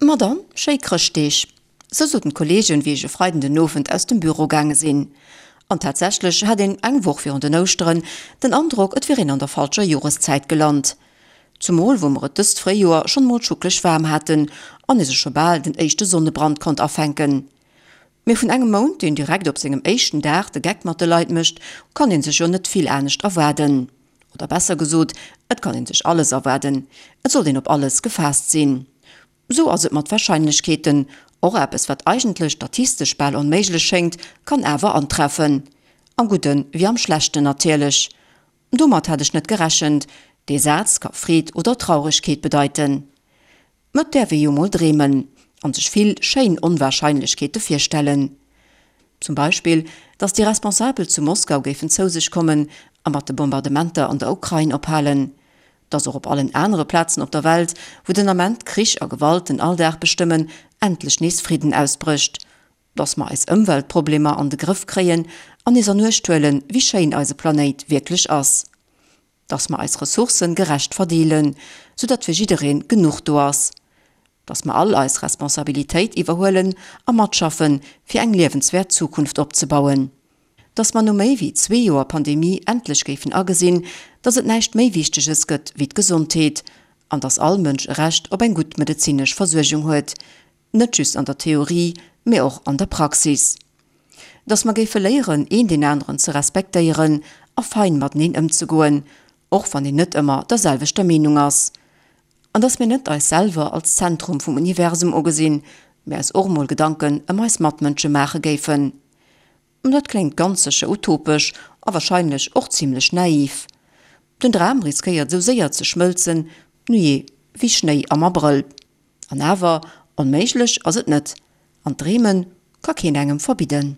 Ma dann, schéi Chrëschtdeeg! Sou soten d'Kollegen, wéi ech e Freiden den Owend aus dem Büro gaange sinn. An tatsächlech hat een eng Woch virun den Ouschteren den Androck, et wier een an der falscher Joreszäit gelant. Zumol wou mer et dëst Fréijoer schonn emol schucklech waarm haten an ee sech scho bal den éischte Sonnebrand konnt afänken. Mee vun engem Mount, deen direkt op sengem éischten Dag de Geck mat de Leit mécht, kann ee sech jo net vill anescht erwaarden. Oder besser gesot, et kann een sech alles erwaarden, et sollt een op alles gefaasst sinn. Sou ass et mat Warscheinlechkeeten, och eppes wat eigentlech statistesch bal onméiglech schéngt, kann awer antreffen. Am Gudde wéi am Schlechten natierlech. Domat hat ech net gerechent. Dee Saz ka Freed oder Trauregkeet bedeiten. Mä et däerf ee jo mol dreemen an sech vill schéin Onwahrscheinlechkeete virstellen. Zum Beispill, datt déi Responsabel zu Moskau géifen zou sech kommen a mat de Bombardementer an der Ukrain ophalen. Datt och op allen anere Plazen op der Welt, wou den Ament Krich a Gewalt den Alldag bestëmmen, endlech nees Fridden ausbrécht. Datt mer eis Ëmweltproblemer an de Grëff kréien an nees an Uecht huelen, wéi schéin eise Planéit wierklech ass. Dass mer eis Ressourcen gerecht verdeelen, sou datt fir jiddereen genuch do ass. Dass mer all eis Responsabilitéit iwwerhuelen a matschaffen, fir eng liewenswäert Zukunft opzebauen. Dass mer no méi wéi zwee Joer Pandemie endlech géifen agesinn, dass et näischt méi Wichteges gëtt wéi d'Gesondheet an dass all Mënsch e Recht op eng gutt medezinesch Versuergung huet, Net just an der Theorie, mee och an der Praxis. Dass mer géife léieren, een deen aneren ze respektéieren a fein mateneen ëmzegoen, och wann een net ëmmer der selwechter Meenung ass. An dass mir net eis selwer als Zentrum vum Universum ugesinn, mee eis och mol Gedanken ëm eis Matmënsche maache géifen. Dat kléngt ganz sécher utopesch a warscheinlech och zimlech naiv. Den Dram riskéiert esou séier ze schmëlzen, nujee, wéi Schnéi am Abrëll. An awer, onméiglech ass et net, an d'Dreeme ka keen engem verbidden.